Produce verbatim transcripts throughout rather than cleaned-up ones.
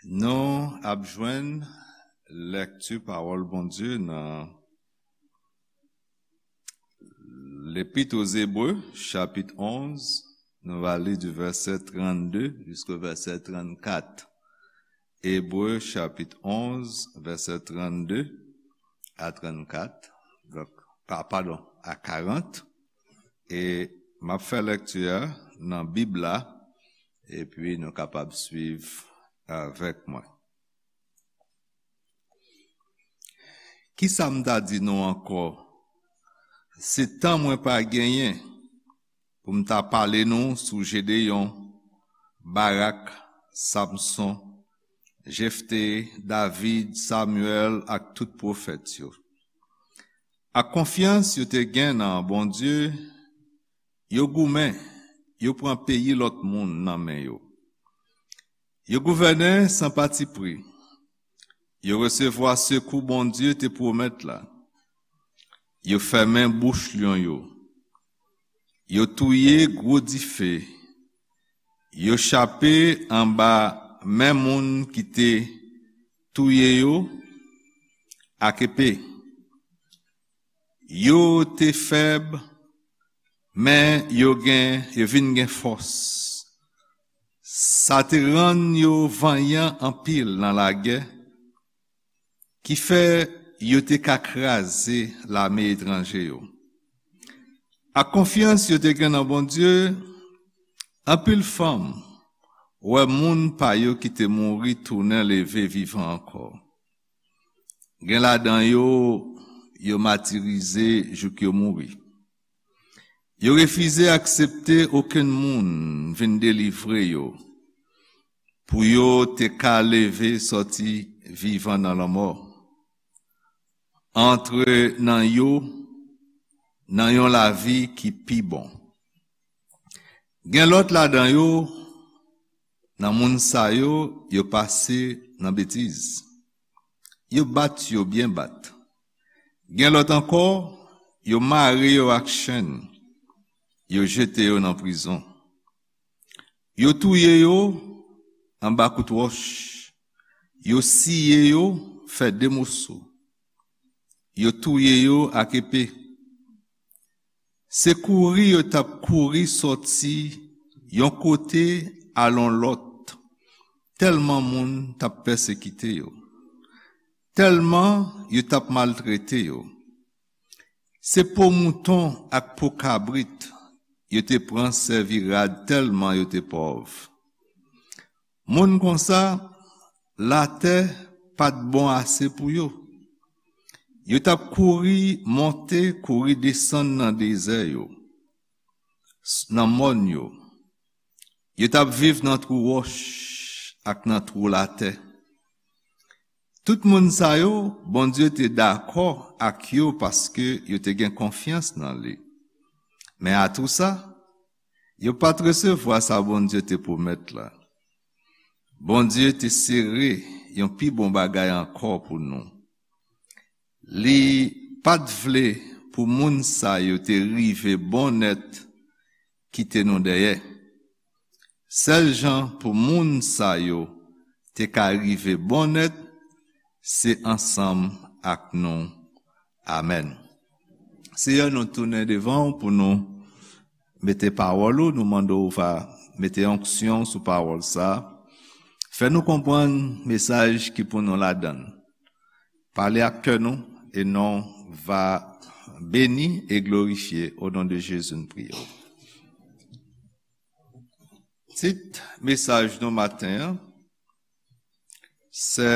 Nou ap jwenn lèkti pawòl Bondye nan Lepit o Zebre, chapit onz, nou va li di vèsè trannde jiska vèsè trannkat. Ebre, chapit onz, vèsè trannde a trannkat. Donk, pa, padon, a karant. E m ap fè lèkti a nan Bib la, epi nou kapab swiv avèk mwen. Kisa m ta di nou ankò? Se tan mwen pa genyen pou m ta pale nou sou Jedeyon, Barak, Samson, Jefte, David, Samyèl ak tout pwofèt yo. Ak konfyans yo te gen nan Bondye, yo goumen, yo pran peyi lòt moun nan men yo. Yo gouvène san patipri. Yo resevwa sekou Bondye te pwomèt la. Yo fèmen bouch lyon yo. Yo touye gwo dife. Yo chape anba men moun ki te touye yo ak epe. Yo te fèb, men yo gen, yo vin gen fòs. Sa te rann yo vanyan anpil nan lagè, ki fè yo te ka kraze lame etranje yo. Ak konfyans yo te gen nan Bondye, anpil fanm wè moun pa yo ki te mouri tounen leve vivan ankò. Gen ladan yo, yo matirize jouk yo mouri. Yo refize aksepte okenn moun vin delivre yo, pou yo te ka leve sòti vivan nan lanmò, antre nan yo, nan yon lavi ki pi bon. Gen lòt ladan yo, nan moun sa yo, yo pase nan betiz. Yo bat yo byen bat. Gen lòt ankò, yo mare yo ak chenn, yo jete yo nan prizon. Yo touye yo anba kout wòch, yo siye yo fè de moso, yo touye yo ak epe. Se kouri yo t ap kouri sòti yon kote al yon lòt, tèlman moun t ap pèsekite yo, tèlman yo t ap maltrete yo. Se po mouton ak po kabrit yo te pran sèvi rad tèlman yo te pòv. Moun konsa, latè pa t bon ase pou yo. Yo t ap kouri monte, kouri desann nan dezè yo, s-, nan mòn yo. Yo t ap viv nan twou wòch ak nan twou latè. Tout moun sa yo, Bondye te dakò ak yo paske yo te gen konfyans nan li. Men atou sa, yo pa t resevwa sa Bondye te pwomèt la. Bondye te sere yon pi bon bagay ankò pou nou. Li pa t vle pou moun sa yo te rive bon nèt kite nou dèyè. Sèl jan pou moun sa yo te ka rive bon nèt, se ansanm ak nou. Amèn. Seyè, nou tounen devan w pou nou mete pawòl ou, nou mande w va mete onksyon sou pawòl sa a. Fè nou konprann mesaj ki pou nou ladan l. Pale ak kè nou, e non w va beni e glorifye. O non de Jezi, nou priye w. Tit mesaj nou maten an, se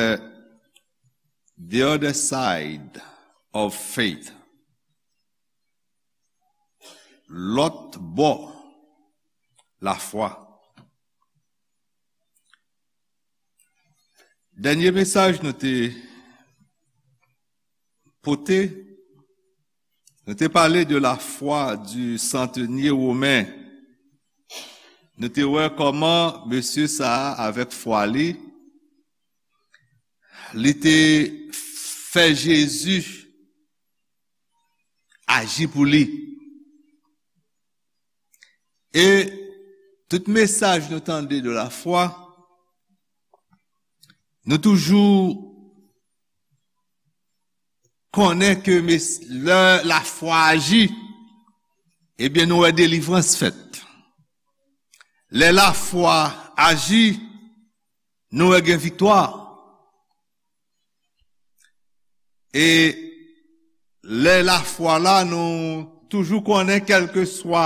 The Other Side of Faith. Lòt bò lafwa. Dènye mesaj nou te pote, nou te pale de la foi du centenier romain. Nou te wè kòman mesye sa a, avèk fwa li, li te fè Jezi aji pou li. E tout mesaj nou tande de la foi, Nou toujou konnen ke mes- lè lafwa aji, ebyen, nou wè delivrans fèt. Lè lafwa aji, nou wè gen viktwa. E lè lafwa la, nou toujou konnen, kèlkeswa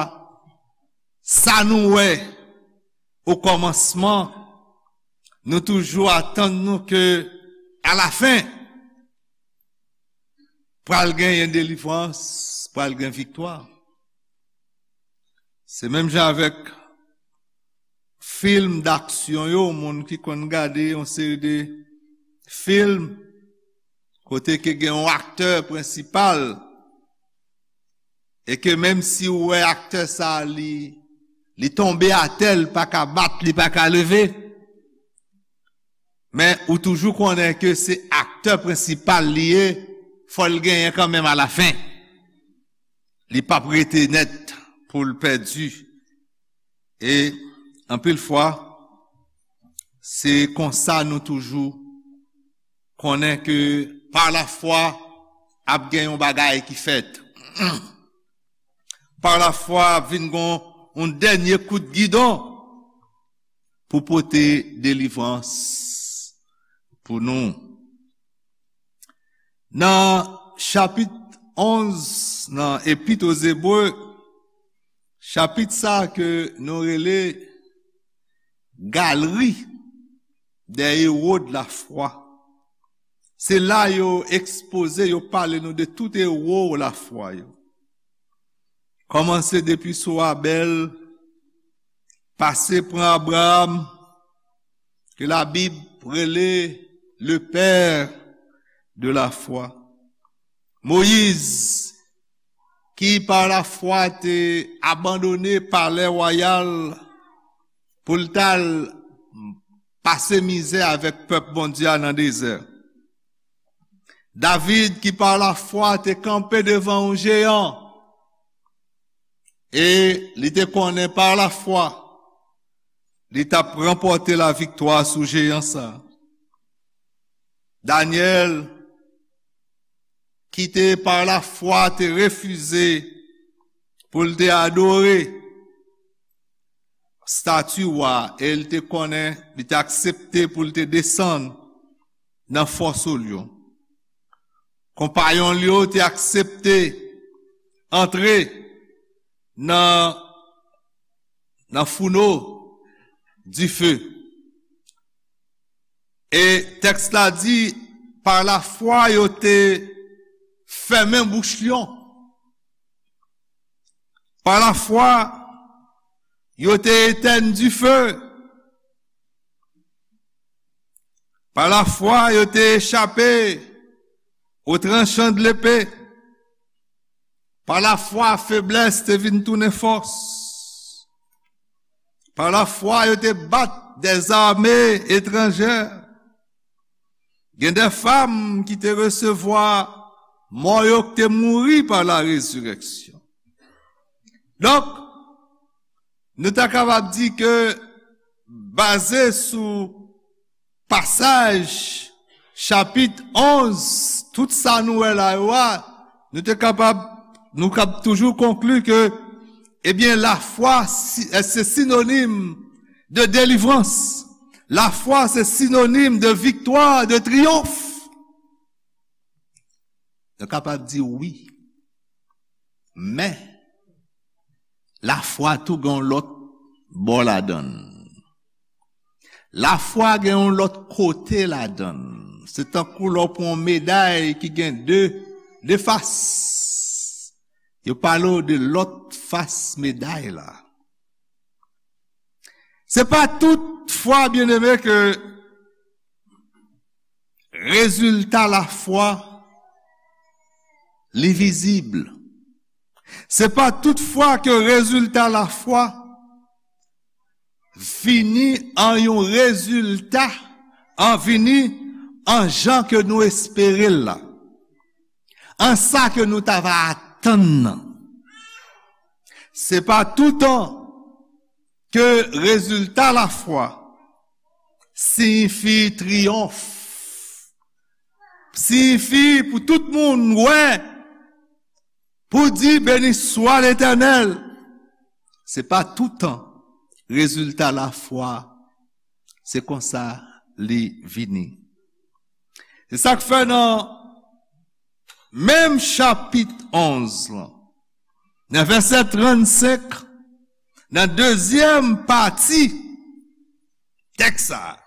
sa nou wè o kòmansman, nou toujou atann nou ke alafen, pral genyen delivrans, pral gen viktwa. Se menm jan avèk fim daksyon yo, moun ki konn gade yon seri de fim kote ke gen yon aktè prensipal, e ke menm si ou wè aktè sa, li, li tonbe atè, li pa ka bat, li pa ka leve, men ou toujou konnen ke se aktè prensipal li ye, fò l genyen kanmenm alafen. Li p ap rete nèt pou l pèdi. E anpil fwa, se konsa nou toujou konnen ke pa lafwa ap gen yon bagay ki fèt. Pa lafwa ap vin gon yon dènye kout gidon pou pote delivrans pou nou. Nan chapit onz nan Epit o Zebre, chapit sa ke nou rele Galerie des héros de la foi. Se la yo ekspoze, yo pale nou de tout ewo lafwa yo. Kòmanse depi sou Abèl, pase pran Abraram, ke Labib rele le père de la foi. Moyiz, ki pa lafwa te abandone palè wayal pou l t al pase mizè avèk pèp Bondye a nan dezè. David, ki pa lafwa te kanpe devan yon jeyan, e li te konnen pa lafwa, li t ap ranpòte laviktwa sou jeyan sa a. Danyèl, ki te pa lafwa te refize pou l te adore stati wa, e l te konnen, li te aksepte pou l te desann nan fò sou lyon. Konpayon l yo te aksepte antre nan, nan founo dife. E tèks la di, pa lafwa yo te fèmen bouch lyon. Pa lafwa, yo te etèn dife. Pa lafwa, yo te echape o tranchan de lepe. Pa lafwa, feblès te vin tounen fòs. Pa lafwa, yo te bat dèzame etranjè. Gen de fanm ki te resevwa mò yo ki te mouri pa la rezirèksyon. Donk, nou ta kapab di ke, baze sou pasaj chapit onz, tout sa nou wè la yo a, nou te kapab, nou kab toujou konkli ke, ebyen, lafwa si- se sinonim de delivrans. Lafwa se sinonim de viktwa, de triyonf. Nou kapab di wi. Men, lafwa tou gen yon lòt bò ladann. Lafwa gen yon lòt kote ladann. Se tankou lè w pran yon meday ki gen de, de fas. Yo pale w de lòt fas meday la. Se pa tout fwa, byeneme, ke rezilta lafwa li vizib. Se pa tout fwa ke rezilta lafwa vini an yon rezilta, an vini an jan ke nou espere l la, an sa ke nou ta va atann nan. Se pa toutan ke rezilta lafwa siyifi triyonf siyifi pou tout moun wè, pou di, "Béni soit l'Éternel." Se pa toutan rezilta lafwa, se konsa li vini. Se sa k fè nan menm chapit onz lan, nan vèsè trannsenk, nan dezyèm pati tèks sa a,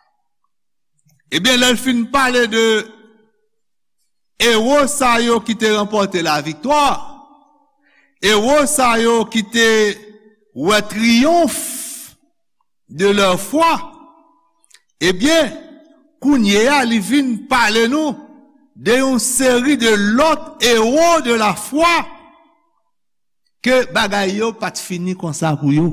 ebyen, lè l fin pale de ewo sa yo ki te ranpòte laviktwa, ewo sa yo ki te wè triyonf de leur foi, ebyen, kounye a, li vin pale nou de yon seri de lòt ewo de lafwa ke bagay yo pa t fini konsa pou yo,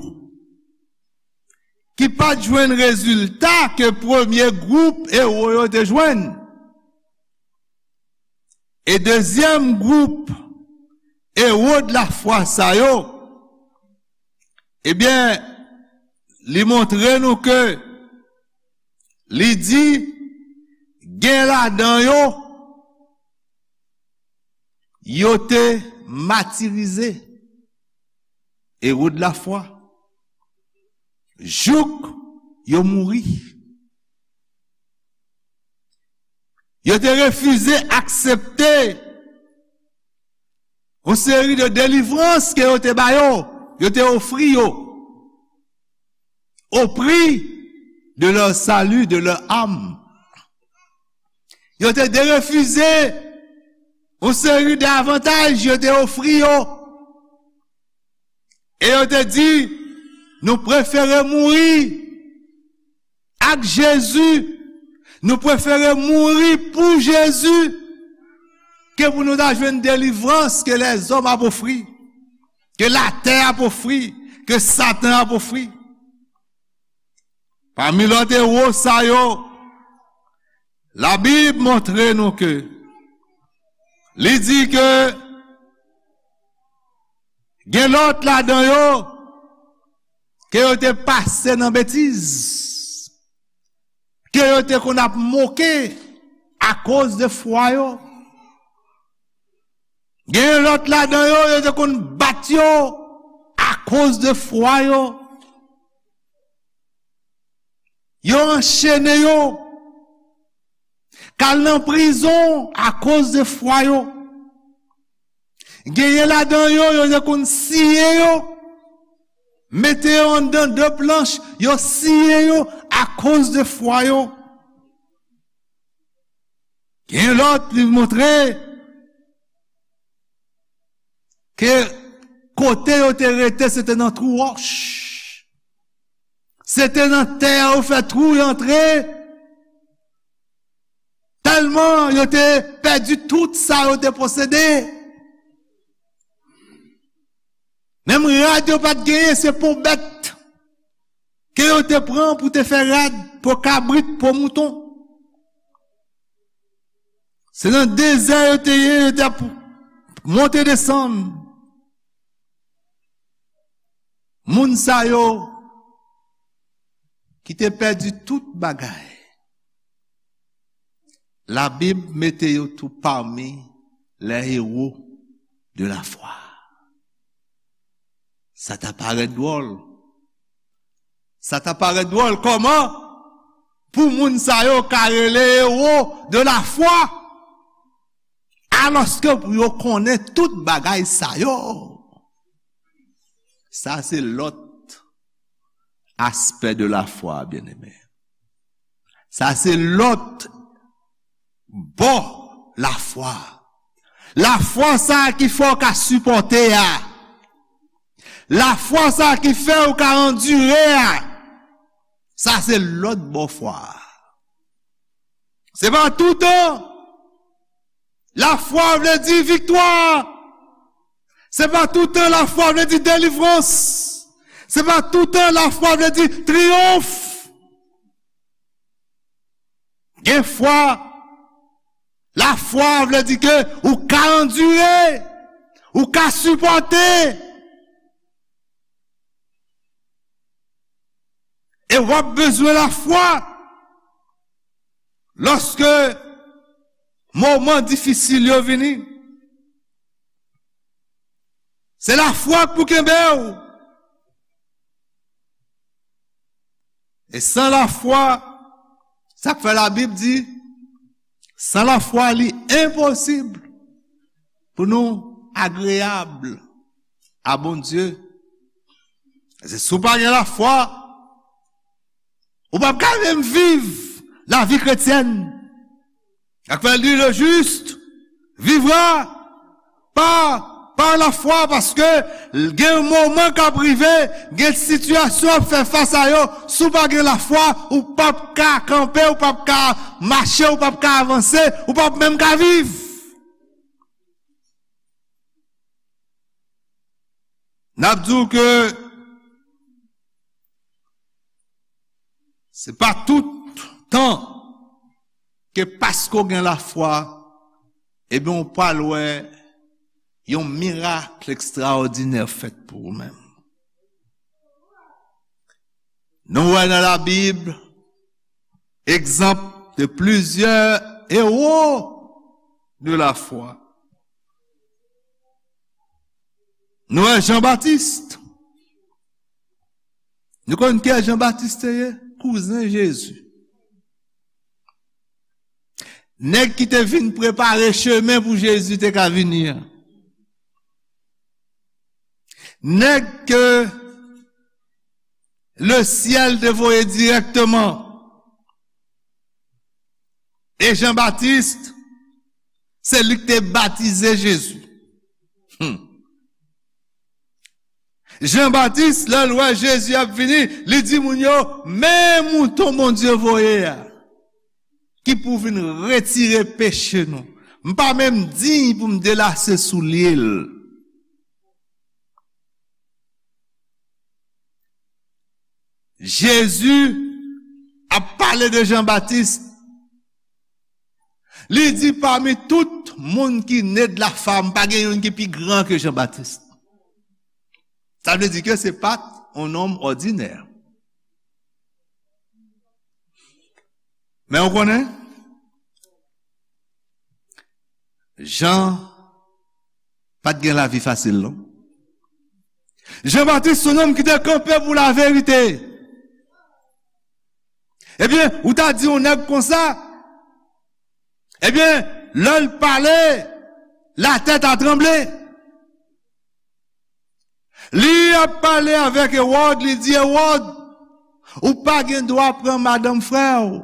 ki pa t jwenn rezilta ke premye gwoup ewo yo te jwenn. E dezyèm gwoup ewo de lafwa sa yo, ebyen, li montre nou ke li di, gen ladan yo, yo te matirize, ewo de lafwa, jouk yo mouri. Yo te refize aksepte yon seri de delivrans ke yo te ba yo, yo te ofri yo, au prix de leur salut, de leur âme. Yo te derefize yon seri de avantaj yo te ofri yo. E yo te di, "Nou prefere mouri ak Jezi. Nou prefere mouri pou Jezi ke pou nou ta jwenn delivrans ke lèzòm ap ofri, ke latè ap ofri, ke Satan ap ofri." Pami lòt ewo sa yo, Labib montre nou ke li di ke gen lòt ladan yo ke yo te pase nan betiz, ke yo te konn ap moke akoz de fwa yo. Gen lòt ladan yo, yo te konn bat yo akoz de fwa yo. Yo anchene yo, k al nan prizon akoz de fwa yo. Genyen ladan yo, yo te konn siye yo, mete yo anndan de planch, yo siye yo akoz de fwa yo. Gen lòt, li montre ke kote yo te rete, se te nan twou wòch. Se te nan tè a yo fè twou, yo antre. Tèlman yo te pèdi tout sa yo te posede. Menm rad yo pa t genyen, se po bèt ke yo te pran pou te fè rad, po kabrit, po mouton. Se nan dezè yo te ye, yo te ap monte desann. Moun sa yo ki te pèdi tout bagay, Labib mete yo tou pami les héros de la foi. Sa ta parèt dwòl. Sa ta parèt dwòl kòman pou moun sa yo ka rele ewo de lafwa, alòske pou yo konnen tout bagay sa yo. Sa se lòt aspè de lafwa, byeneme. Sa se lòt bò lafwa. Lafwa sa ki fè w ka sipòte a. Lafwa sa ki fè w ka andire a. Sa se lòt bò fwa a. Se pa toutan lafwa vle di viktwa. Se pa toutan lafwa vle di delivrans. Se pa toutan lafwa vle di triyonf. Gen fwa, lafwa vle di ke ou ka andire, ou ka sipòte. E w ap bezwen lafwa lòske moman difisil yo vini. Se lafwa k pou kenbe w. E san lafwa, sa k fè Labib di, san lafwa, li enposib pou nou agreyab a Bondye. Se si w pa gen lafwa, ou p ap ka menm viv lavi kretyèn. Sa k fè l di, le juste vivra par, par la foi, paske gen moman k ap rive, gen sitiyasyon w ap fè fas a yo, si w pa gen lafwa, ou p ap ka kanpe, ou p ap ka mache, ou p ap ka avanse, ou p ap menm ka viv. N ap di w ke se pa tout tan ke paske w gen lafwa, ebyen, w pral wè yon mirak ekstraòdinè fèt pou ou menm. Nou wè nan Labib egzanp de plizyè ewo de lafwa. Nou wè Jan Batis. Nou konn kiyès Jan Batis te ye? Kouzen Jezi. Nèg ki te vin prepare chemen pou Jezi te ka vini an. Nèg ke le syèl te voye dirèkteman. E Jan Batis, se li ki te batize Jezi. Hmm. Jan Batis, lè l wè Jezi ap vini, li di moun yo, "Men mouton Bondye voye a, ki pou vin retire peche nou. M pa menm diy pou m delase soulye l." Jezi ap pale de Jan Batis. Li di, "Pami tout moun ki ne de la fam, pa gen youn ki pi gran ke Jan Batis." Sa vle di ke se pa t yon nonm òdinè. Men ou konnen, Jan pa t gen lavi fasil, non. Jan Batis se yon nonm ki te kanpe pou laverite. Ebyen, ou ta di yon nèg konsa, ebyen, lè l pale, latè ta tranble. Li ap pale avèk Ewòd, li di, "Ewòd, ou pa gen dwa pran madanm frè w."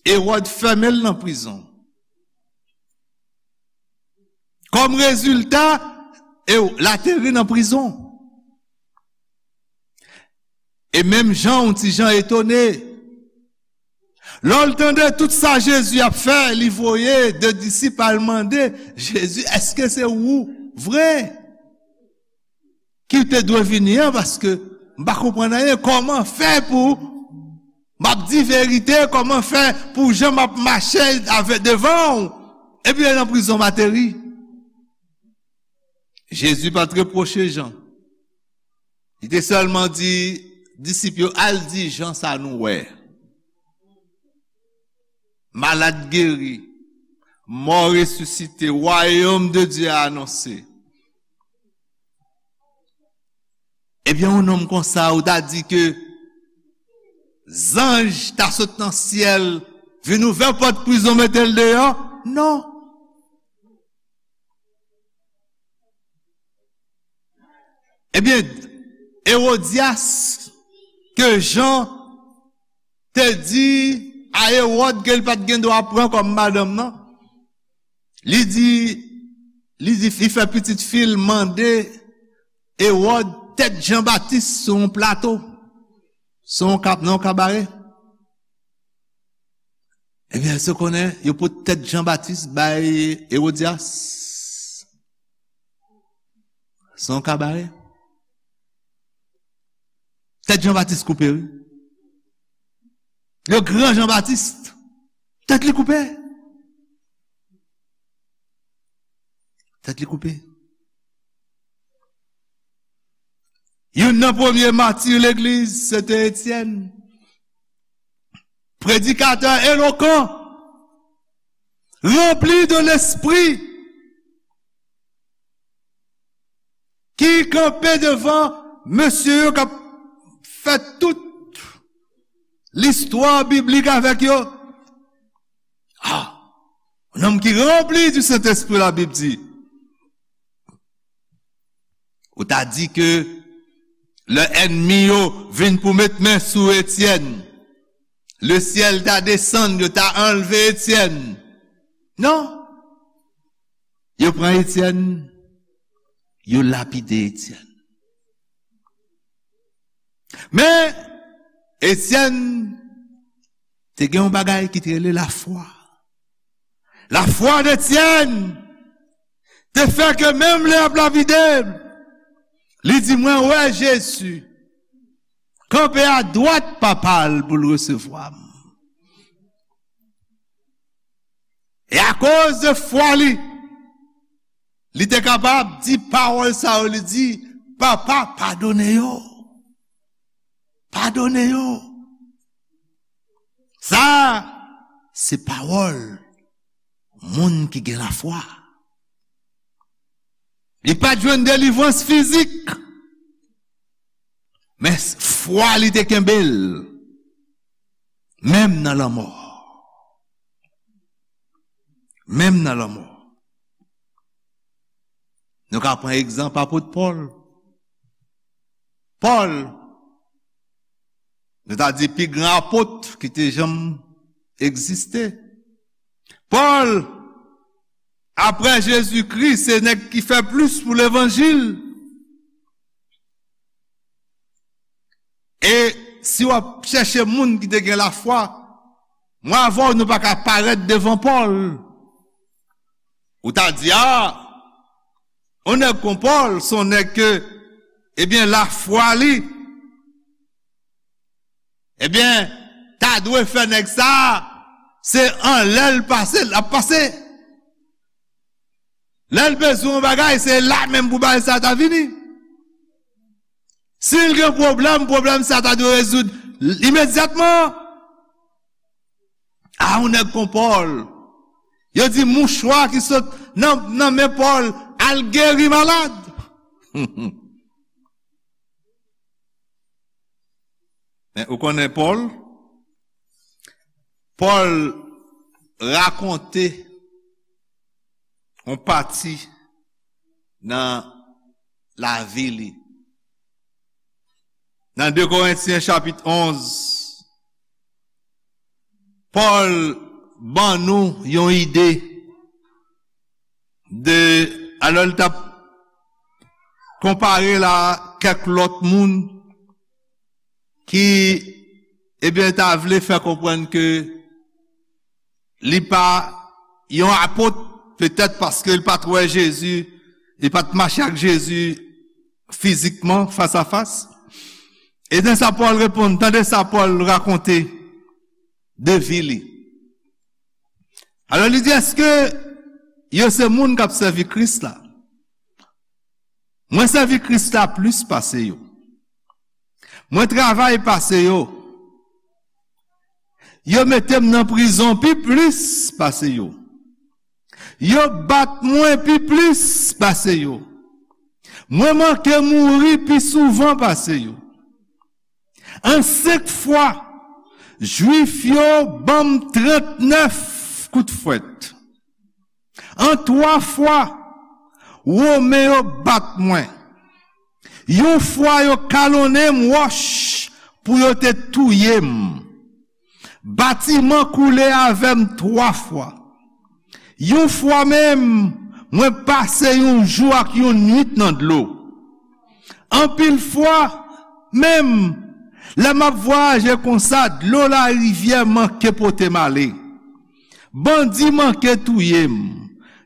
Ewòd fèmen l nan prizon. Kòm rezilta, Ew-, l ateri nan prizon. E menm Jan, yon ti jan etone. Lè l tande tout sa Jezi ap fè, li voye de disip al mande Jezi, "Èske se ou vre ki te dwe vini an? Paske m pa konprann anyen. Kòman fè pou m ap di verite? Kòman fè pou jan m ap mache avè devan w? Epi nan prizon m ateri?" Jezi pa t repwoche Jan. Li te sèlman di disip yo, "Al di Jan sa nou wè. Malad geri, mò resisite, wayòm de Dye a anonse." Ebyen, yon nonm konsa, ou ta di ke zanj ta sot nan syèl, vin ouvè pòt prizon, mete l deyò? Non. Ebyen, Ewodyas, ke Jan te di a Ewòd ke l pa t gen dwa pran kòm madanm nan, li di, li di, li fè pitit fi l mande Ewòd tèt Jan Batis sou yon plato, sou yon kab-, nan yon kabare. Ebyen, èske w konnen yo pote tèt Jan Batis bay Ewodyas? Se yon kabare. Tèt Jan Batis koupe, wi. Le gran Jan Batis, tèt li koupe. Tèt li koupe. Youn nan premye mati legliz, se te Etyèn. Predikatè elokan. Ranpli de Lespri, ki kanpe devan mesye yo k ap fè tout listwa biblik avèk yo. Ah, un homme qui rempli du Saint-Esprit, la Bible dit. Ou ta di ke lè ènmi yo vin pou met men sou Etyèn, lesyèl ta desann, yo ta anlve Etyèn. Non. Yo pran Etyèn, yo lapide Etyèn. Men, Etyèn te gen yon bagay ki te rele lafwa. Lafwa d'Etyèn te fè ke menm lè y ap lapide l, li di, "Mwen wè Jezi kanpe adwat Papa l pou l resevwa m." E akoz de fwa li, li te kapab di pawòl sa yo, li di, "Papa, padone yo. Padone yo." Sa, se pawòl moun ki gen lafwa. Li pa t jwenn delivrans fizik, men fwa li te kenbe l, menm nan lanmò. Menm nan lanmò. Nou ka pran egzanp apot Pòl. Pòl, nou ta di pi gran apot ki te janm egziste. Pòl, apre Jezikri, se nèg ki fè plis pou levanjil. E si w ap chèche moun ki te gen lafwa, mwen avè w, nou pa ka parèt devan Pòl. Ou ta di, a, yon nèg kon Pòl, se yon nèg ke, ebyen, lafwa li, ebyen, ta dwe fè nèg sa a, se anlè l pase, l ap pase. Lè l bezwen yon bagay, se la menm pou bagay sa a ta vini. Si l gen pwoblèm, pwoblèm sa a ta dwe rezoud imedyatman. A, yon nèg kon Pòl, yo di mouchwa ki sot nan, nan men Pòl al geri malad. Men ou konnen Pòl? Pòl rakonte yon pati nan lavi li. Nan de Korentyen chapit onz, Pòl ban nou yon ide de, alò, l t ap konpare l a kèk lòt moun ki, ebyen, ta vle fè konprann ke li pa yon apot, petèt paske li pa t wè Jezi, li pa t mache ak Jezi fizikman, fas a fas. E nan sa Pòl reponn, tande sa Pòl rakonte de vi li. Alò, li di, èske yo se moun k ap sèvi Kris la? Mwen sèvi Kris la plis pase yo. Mwen travay pase yo. Yo mete m nan prizon pi plis pase yo. Yo bat mwen pi plis pase yo. Mwen manke mouri pi souvan pase yo. An senk fwa, Jwif yo ban m trannèf kout fwèt. An twa fwa, Women yo bat mwen. Yon fwa, yo kalonnen m wòch pou yo te touye m. Batiman koule avè m twa fwa. Yon fwa menm, mwen pase yon jou ak yon nuit nan dlo. Anpil fwa menm, lè m ap vwayaje konsa, dlo larivyè manke pote m ale. Bandi manke touye m.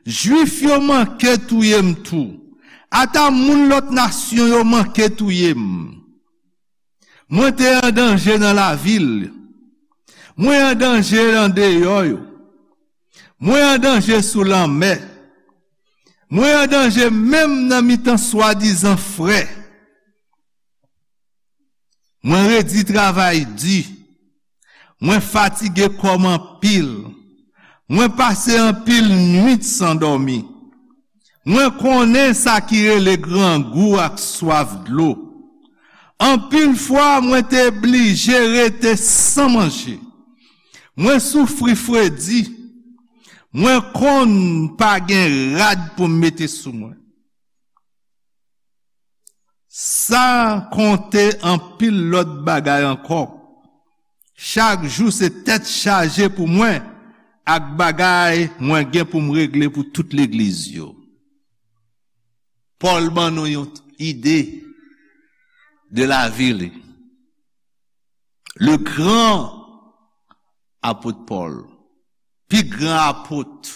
Jwif yo manke touye m tou. Ata moun lòt nasyon yo manke touye m. Mwen te an danje nan lavil. Mwen an danje andeyò yo. Mwen an danje sou lanmè. Mwen an danje menm nan mitan swadizan frè. Mwen redi travay di. Mwen fatige kò m anpil. Mwen pase anpil nwit san dòmi. Mwen konnen sa ki rele grangou ak swaf dlo. Anpil fwa mwen te blije rete san manje. Mwen soufri fredi. Mwen konn pa gen rad pou m mete sou mwen. San konte anpil lòt bagay ankò. Chak jou se tèt chaje pou mwen ak bagay mwen gen pou m regle pou tout legliz yo. Pòl ban nou yon ide de lavi li. Le gran apot Pòl, pi gran apot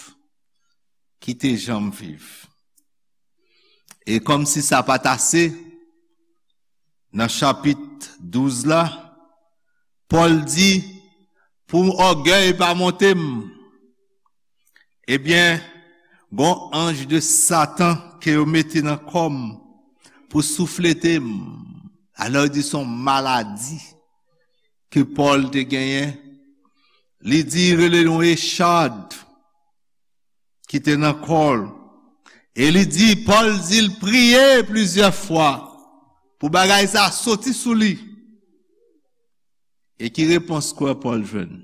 ki te janm viv. E kòmsi sa pa t ase, nan chapit douz la, Pòl di, pou ògèy pa monte m, ebyen, gon anj de Satan ke yo mete nan kò m pou souflete m. Alò, yo di se yon maladi ke Pòl te genyen. Li di, rele yon echad ki te nan kò l. E li di, Pòl di l priye plizyè fwa pou bagay sa soti sou li. E ki repons kwè Pòl jwenn?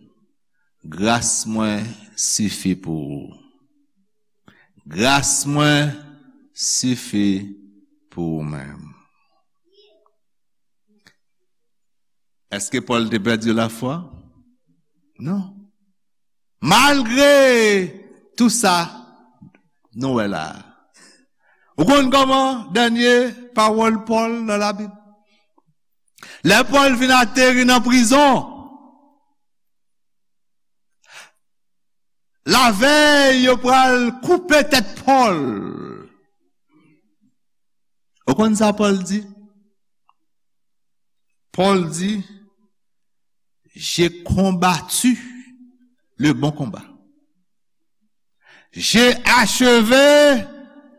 Gras mwen sifi pou ou. Gras mwen sifi pou ou menm. Èske Pòl te pèdi lafwa? Non. Malgre tou sa, nou wè la. Ou konn kòman dènye pawòl Pòl nan Labib? Lè Pòl vin ateri nan prizon, lavèy yo pral koupe tèt Pòl. Ou konn sa Pòl di? Pòl di, j'ai combattu le bon combat. J'ai achevé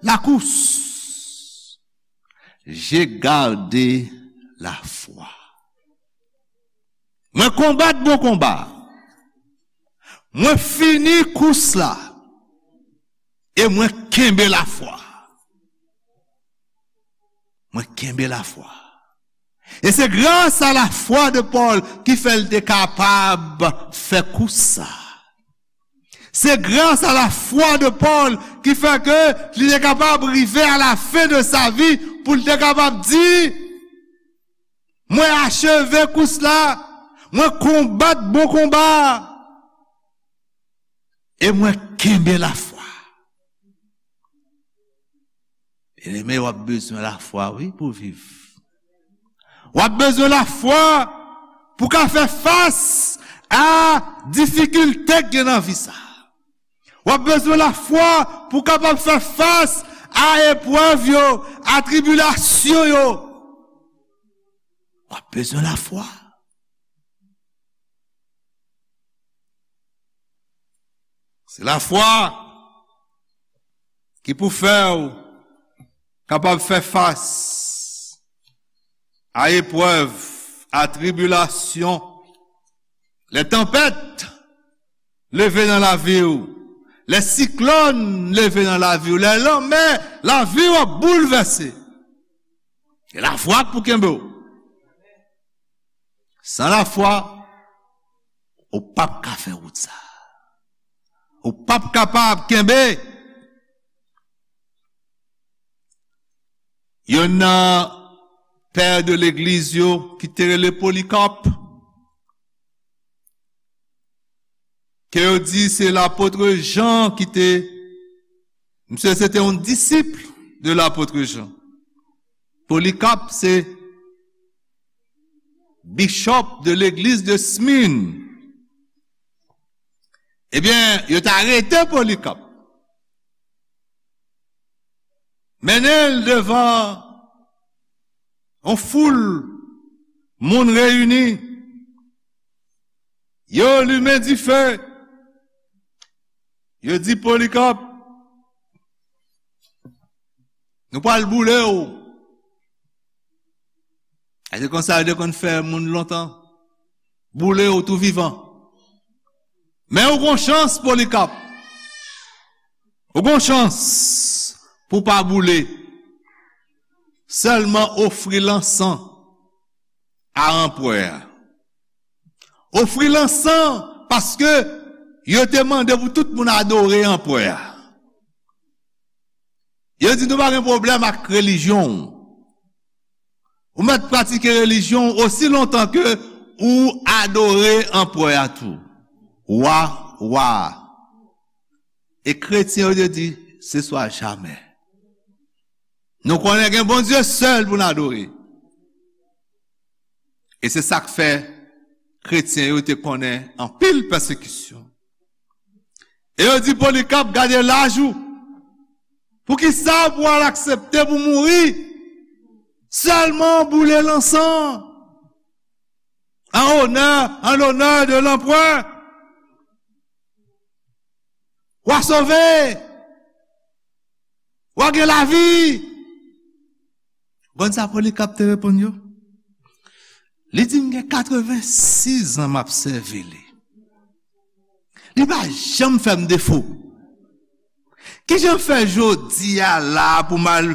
la course. J'ai gardé la foi. Mwen konbat bon konba. Mwen fini kous la. E mwen kenbe lafwa. Mwen kenbe lafwa. E se gras a lafwa de Pòl ki fè l te kapab fè kous sa. Se gras a lafwa de Pòl ki fè ke li te kapab rive a la fen de sa vi pou l te kapab di, mwen acheve kous la, mwen konbat bon konba a, e mwen kenbe lafwa. Byeneme, w ap bezwen lafwa, wi, pou viv. W ap bezwen lafwa pou ka fè fas a difikilte k gen nan vi sa. W ap bezwen lafwa pou kapab fè fas a eprèv yo, a tribilasyon yo. W ap bezwen lafwa. Se lafwa ki pou fè w kapab fè fas a eprèv, a tribilasyon, lè tanpèt leve nan lavi w, lè siklòn leve nan lavi w, lè lanmè lavi w ap boulvèse. Se lafwa k pou kenbe w. San lafwa, ou p ap ka fè wout sa. Ou p ap kapab kenbe. Youn nan pè de legliz yo ki te rele Polikap, ke yo di se lapot Jan ki te, misye se te yon disip de lapot Jan. Polikap se bishop de legliz de Smyrne. Ebyen, yo t arete Polikap. Mennen l devan yon foul moun reyini. Yo limen dife. Yo di Polikap, nou pral boule w. E se konsa yo te konn fè moun lontan. Boule w tou vivan. Men ou gon chans, Polikap. Ou gon chans pou w pa boule. Sèlman ofri lansan a anperè a. Ofri lansan paske yo te mande pou tout moun adore anperè a. Yo di nou pa gen pwoblèm ak relijyon w. Ou mèt pratike relijyon w osi lontan ke ou adore anperè a tou. Wa, wa. E kretyen yo te di, se swa jamè. Nou konnen gen Bondye sèl pou n adore. E se sa k fè kretyen yo te konnen anpil pèsekisyon. E yo di Polikap, gade laj ou. Poukisa pou w al aksepte pou mouri? Sèlman boule lansan. An onè, an lonè de lanperè. W a sove. W a gen lavi. Konn sa Polikap te reponn yo? Li di, m gen katrevensis an m ap sèvi li. Li pa janm fè m defo. Kijan fè jodi a la pou m al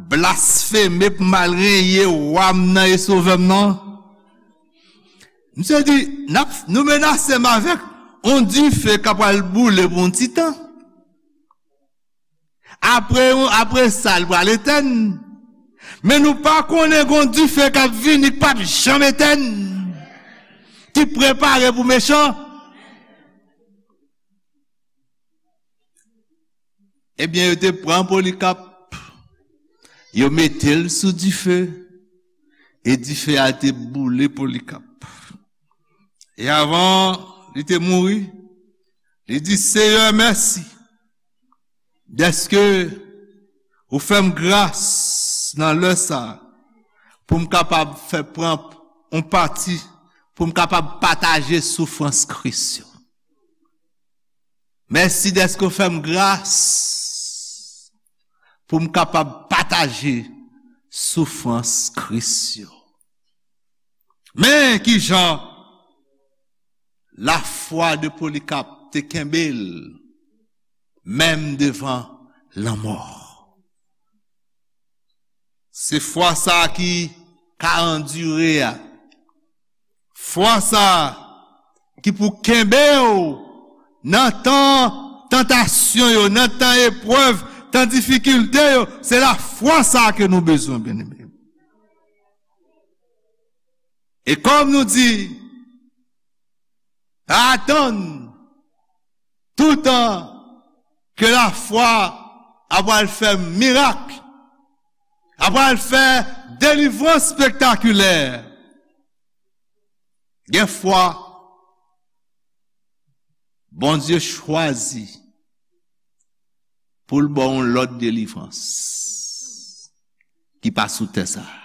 blasfeme, pou m al renye wa m nan e sovè m nan? Misye di, n ap, nou menase m avèk yon dife k ap pral boule pou yon ti tan. Apre, apre sa, l pral etèn. Men nou pa konnen gon dife k ap vini k p ap janm etèn, ki prepare pou mechan. Ebyen, yo te pran Polikap, yo mete l sou dife, e dife a te boule Polikap. E avan li te mouri, li di, Seyè, mèsi dèske ou fè m gras nan lè sa a, pou m kapab fè pran yon pati, pou m kapab pataje soufrans Kris yo. Mèsi dèske w fè m gras pou m kapab pataje soufrans Kris yo. Men kijan lafwa de Polikap te kenbe l, menm devan lanmò. Se fwa sa a ki ka andire a. Fwa sa a ki pou kenbe w nan tan tantasyon yo, nan tan eprèv, tan difikilte yo. Se lafwa sa a ke nou bezwen, byeneme. E kòm nou di, pa atann toutan ke lafwa ap pral fè mirak, ap pral fè delivrans spektakilè. Gen fwa, Bondye chwazi pou l ba w yon lòt delivrans ki pa sou tè sa a.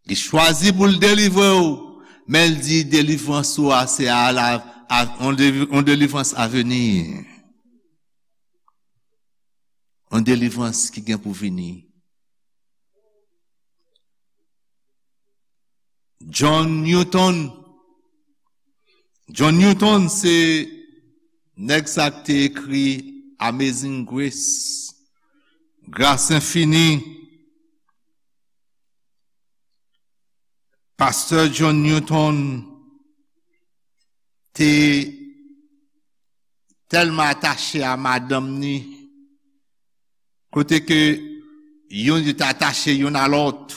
Li chwazi pou l delivre w, men l di delivrans ou a se a la, a, yon deli-, yon delivrans aveni. Yon delivrans ki gen pou vini. John Newton. John Newton se nèg sa k te ekri Amazing Grace, Gras Enfini. Pastè John Newton te tèlman atache a madanm ni, kote ke youn yo te atache youn a lòt,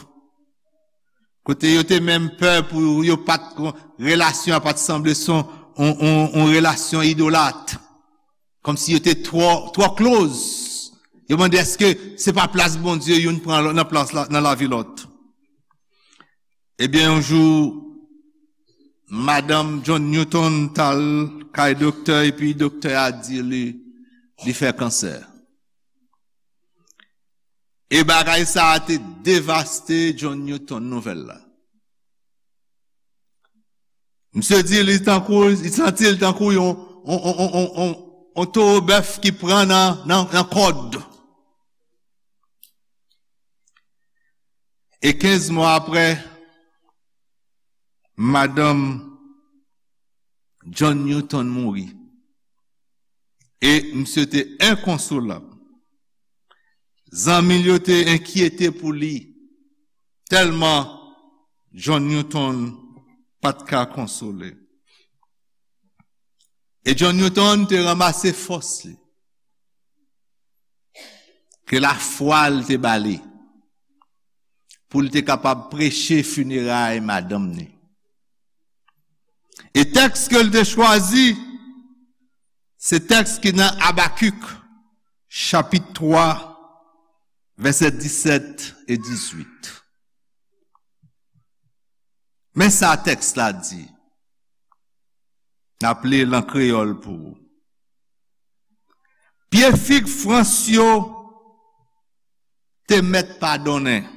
kote yo te menm pè pou yo pa t, relasyon an pa t sanble se yon, yon, yon, yon relasyon idolat, kòmsi yo te twò, twò close. Yo mande èske se pa plas Bondye youn pran nan plas la, nan lavi lòt. Ebyen, yon jou, madanm John Newton t al kay doktè, epi doktè a di li, li fè kansè. E bagay sa a te devaste John Newton, nouvèl la. Misye di li tankou, li santi l tankou yon, yon, yon towo bèf ki pran nan, nan, nan kòd. E kenz mwa apre, madanm John Newton mouri. E misye te enkonsolab. Zanmi l yo te enkyete pou li, tèlman John Newton pa t ka konsole. E John Newton te ranmase fòs li, ke lafwa l te ba li, pou l te kapab preche fineray madanm ni. E tèks ke l te chwazi, se tèks ki nan Abakik, chapit twa, vèsè disèt e dizuit. Men sa tèks la di. N ap li l an kreyòl pou ou. Pye fig frans yo te mèt pa donnen.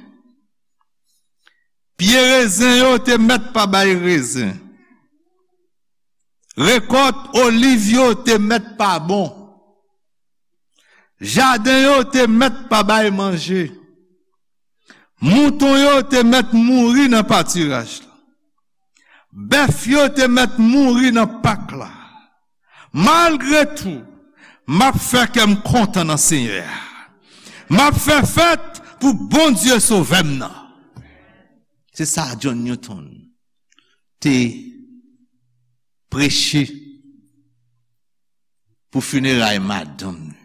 Pye rezen yo te mèt pa bay rezen. Rekòt oliv yo te mèt pa bon. Jaden yo te mèt pa bay manje. Mouton yo te mèt mouri nan patiraj la. Bèf yo te mèt mouri nan pak la. Malgre tou, m ap fè kè m kontan nan Senyè a. M ap fè fèt pou Bondye Sovè m nan. Se sa John Newton te preche pou fineray madanm li.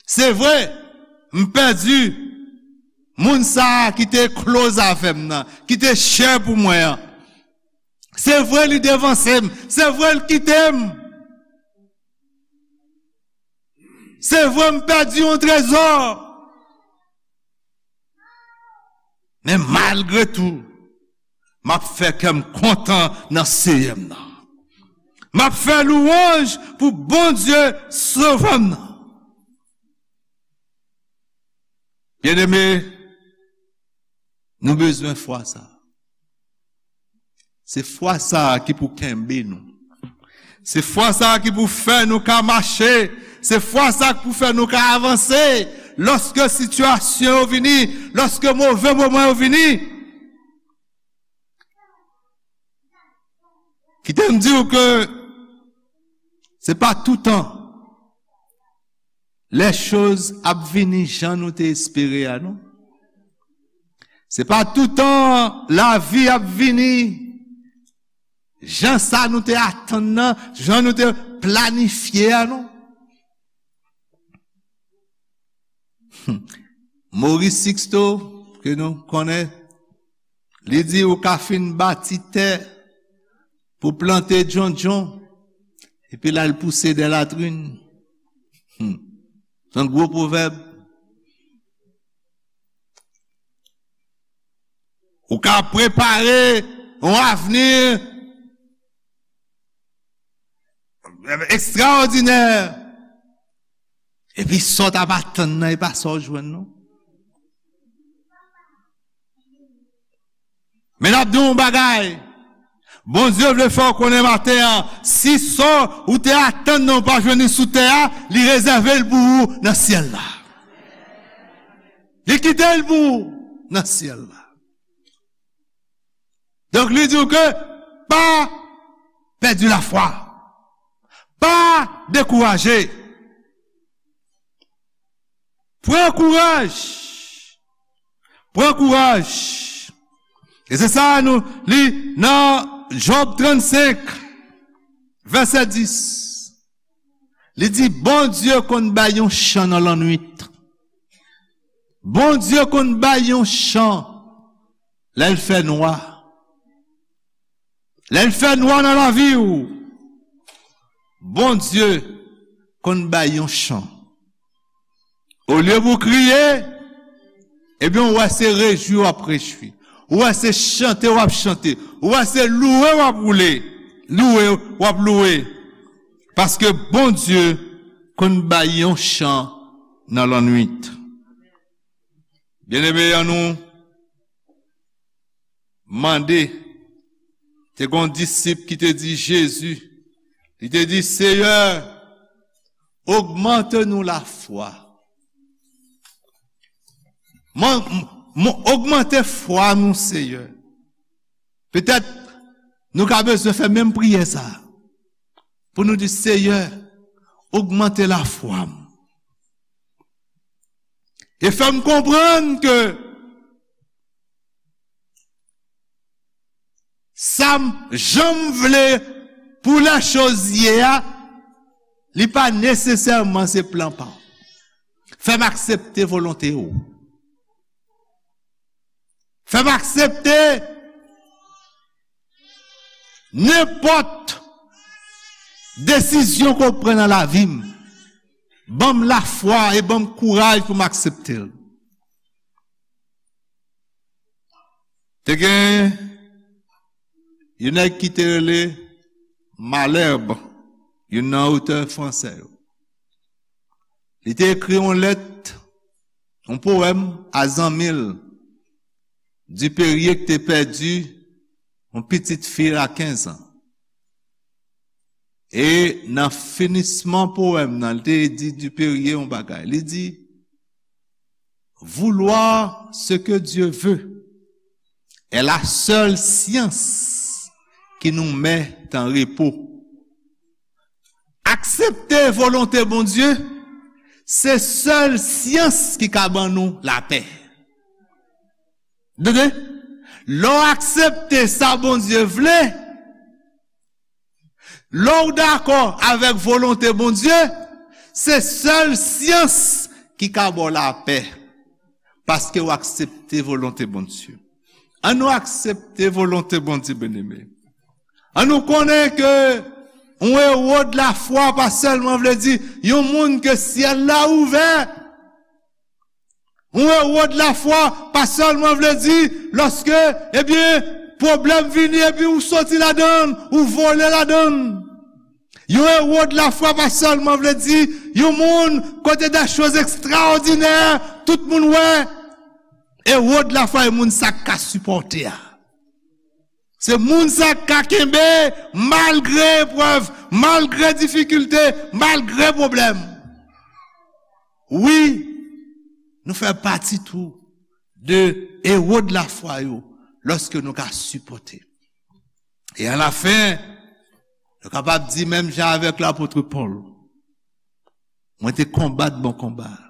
Se vre, m pèdi moun sa a ki te close avè m nan, ki te chè pou mwen an. Se vre, li devanse m. Se vre, l kite m. Se vre, m pèdi yon trezò. Men malgre tou, m ap fè kè m kontan nan Senyè m nan. M ap fè louwanj pou Bondye Sovè m nan. Byeneme, nou bezwen fwa sa. Se fwa sa a ki pou kenbe nou. Se fwa sa a ki pou fè nou ka mache. Se fwa sa a ki pou fè nou ka avanse. Lòske sitiyasyon yo vini, lòske move moman yo vini, kite m di w ke se pa toutan lè choz ap vini jan nou te espere a, non. Se pa toutan lavi ap vini jan sa nou te atann nan, jan nou te planifye a, non. Maurice Sixto, ke nou konnen, li di ou ka fin bati tè pou plante djondjon, epi l al pouse dè latrin. Hmm. Se yon gwo pwovèb. Ou ka prepare yon avni ekstraòdinè. Epi sa w t ap atann nan, e pa sa w jwenn, non. Men n ap di w yon bagay. Bondye vle fè w konnen maten an, si sa w te atann nan ou pa jwenn li sou tè a, li rezève l pou ou nan syèl la. Li kite l pou ou nan syèl la. Donk, li di w ke pa pèdi lafwa. Pa dekouraje. Pran kouraj. Pran kouraj. E se sa nou li nan Jòb trannsenk, vèsè dis. Li di, Bondye konn bay yon chan nan lannwit. Bondye konn bay yon chan lè l fè nwa. Lè l fè nwa nan lavi w, Bondye konn bay yon chan. Olye pou w kriye, ebyen, ou wè se rejwi w ap rejwi. Ou wè se chante w ap chante. Ou wè se louwe w ap woule. Louwe w ap louwe. Paske Bondye konn bay yon chan nan lannwit. Byeneme, annou mande, te gen yon disip ki te di Jezi, li te di, Seyè, ogmante nou lafwa. Mwen, mwen, ogmante fwa nou, Seyè. Petèt, nou ka bezwen fè menm priyè sa a. pou nou di, Seyè, ogmante lafwa m. E fè m konprann ke sa m, jan m vle pou lèchoz ye a, li pa nesesèman se plan pa w. Fè m aksepte volonte w. Fè m aksepte nenpòt desizyon ke w pran nan lavi m. Ban m lafwa e ban m kouraj pou m aksepte l. Te gen yon nèg ki te rele Malherbe, youn nan otè fransè yo. Li te ekri yon lèt, yon powèm a zanmi l, Dupérier, ki te pèdi yon pitit fi l a kenz an. E nan finisman powèm nan, li te di Dupérier yon bagay. Li di, Vouloir ce que Dieu veut est la seule science qui nous met en repos. Aksepte volonte Bondye, se sèl syans ki ka ban nou lapè. Tande? Lè w aksepte sa Bondye vle, lè w dakò avèk volonte Bondye, se sèl syans ki ka ba w lapè. Paske w aksepte volonte Bondye. An nou aksepte volonte Bondye, byeneme. An nou konnen ke yon ewo de lafwa pa sèlman vle di yon moun ke syèl la ouvè. Yon ewo de lafwa pa sèlman vle di lòske, ebyen, pwoblèm vini epi ou soti ladan l, ou vole ladan l. Yon ewo de lafwa pa sèlman vle di yon moun kote de choz ekstraòdinè, tout moun wè. Ewo de lafwa e moun sa k ka sipòte a. Se moun sa k ka kenbe malgre eprèv, malgre difikilte, malgre pwoblèm. Wi, nou fè pati tou de ewo de lafwa yo lòske nou ka sipòte. E alafen, nou kapab di menm jan avèk lapot Pòl, mwen te konbat bon konba a.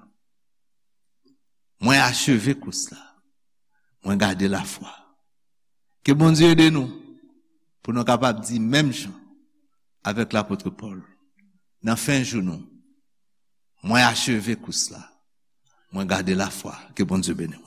Mwen acheve kous la. Mwen gade lafwa. Ke Bondye ede nou pou nou kapab di menm jan avèk lapot Pòl nan fen jou nou, mwen acheve kous la. Mwen gade lafwa. Ke Bondye beni w.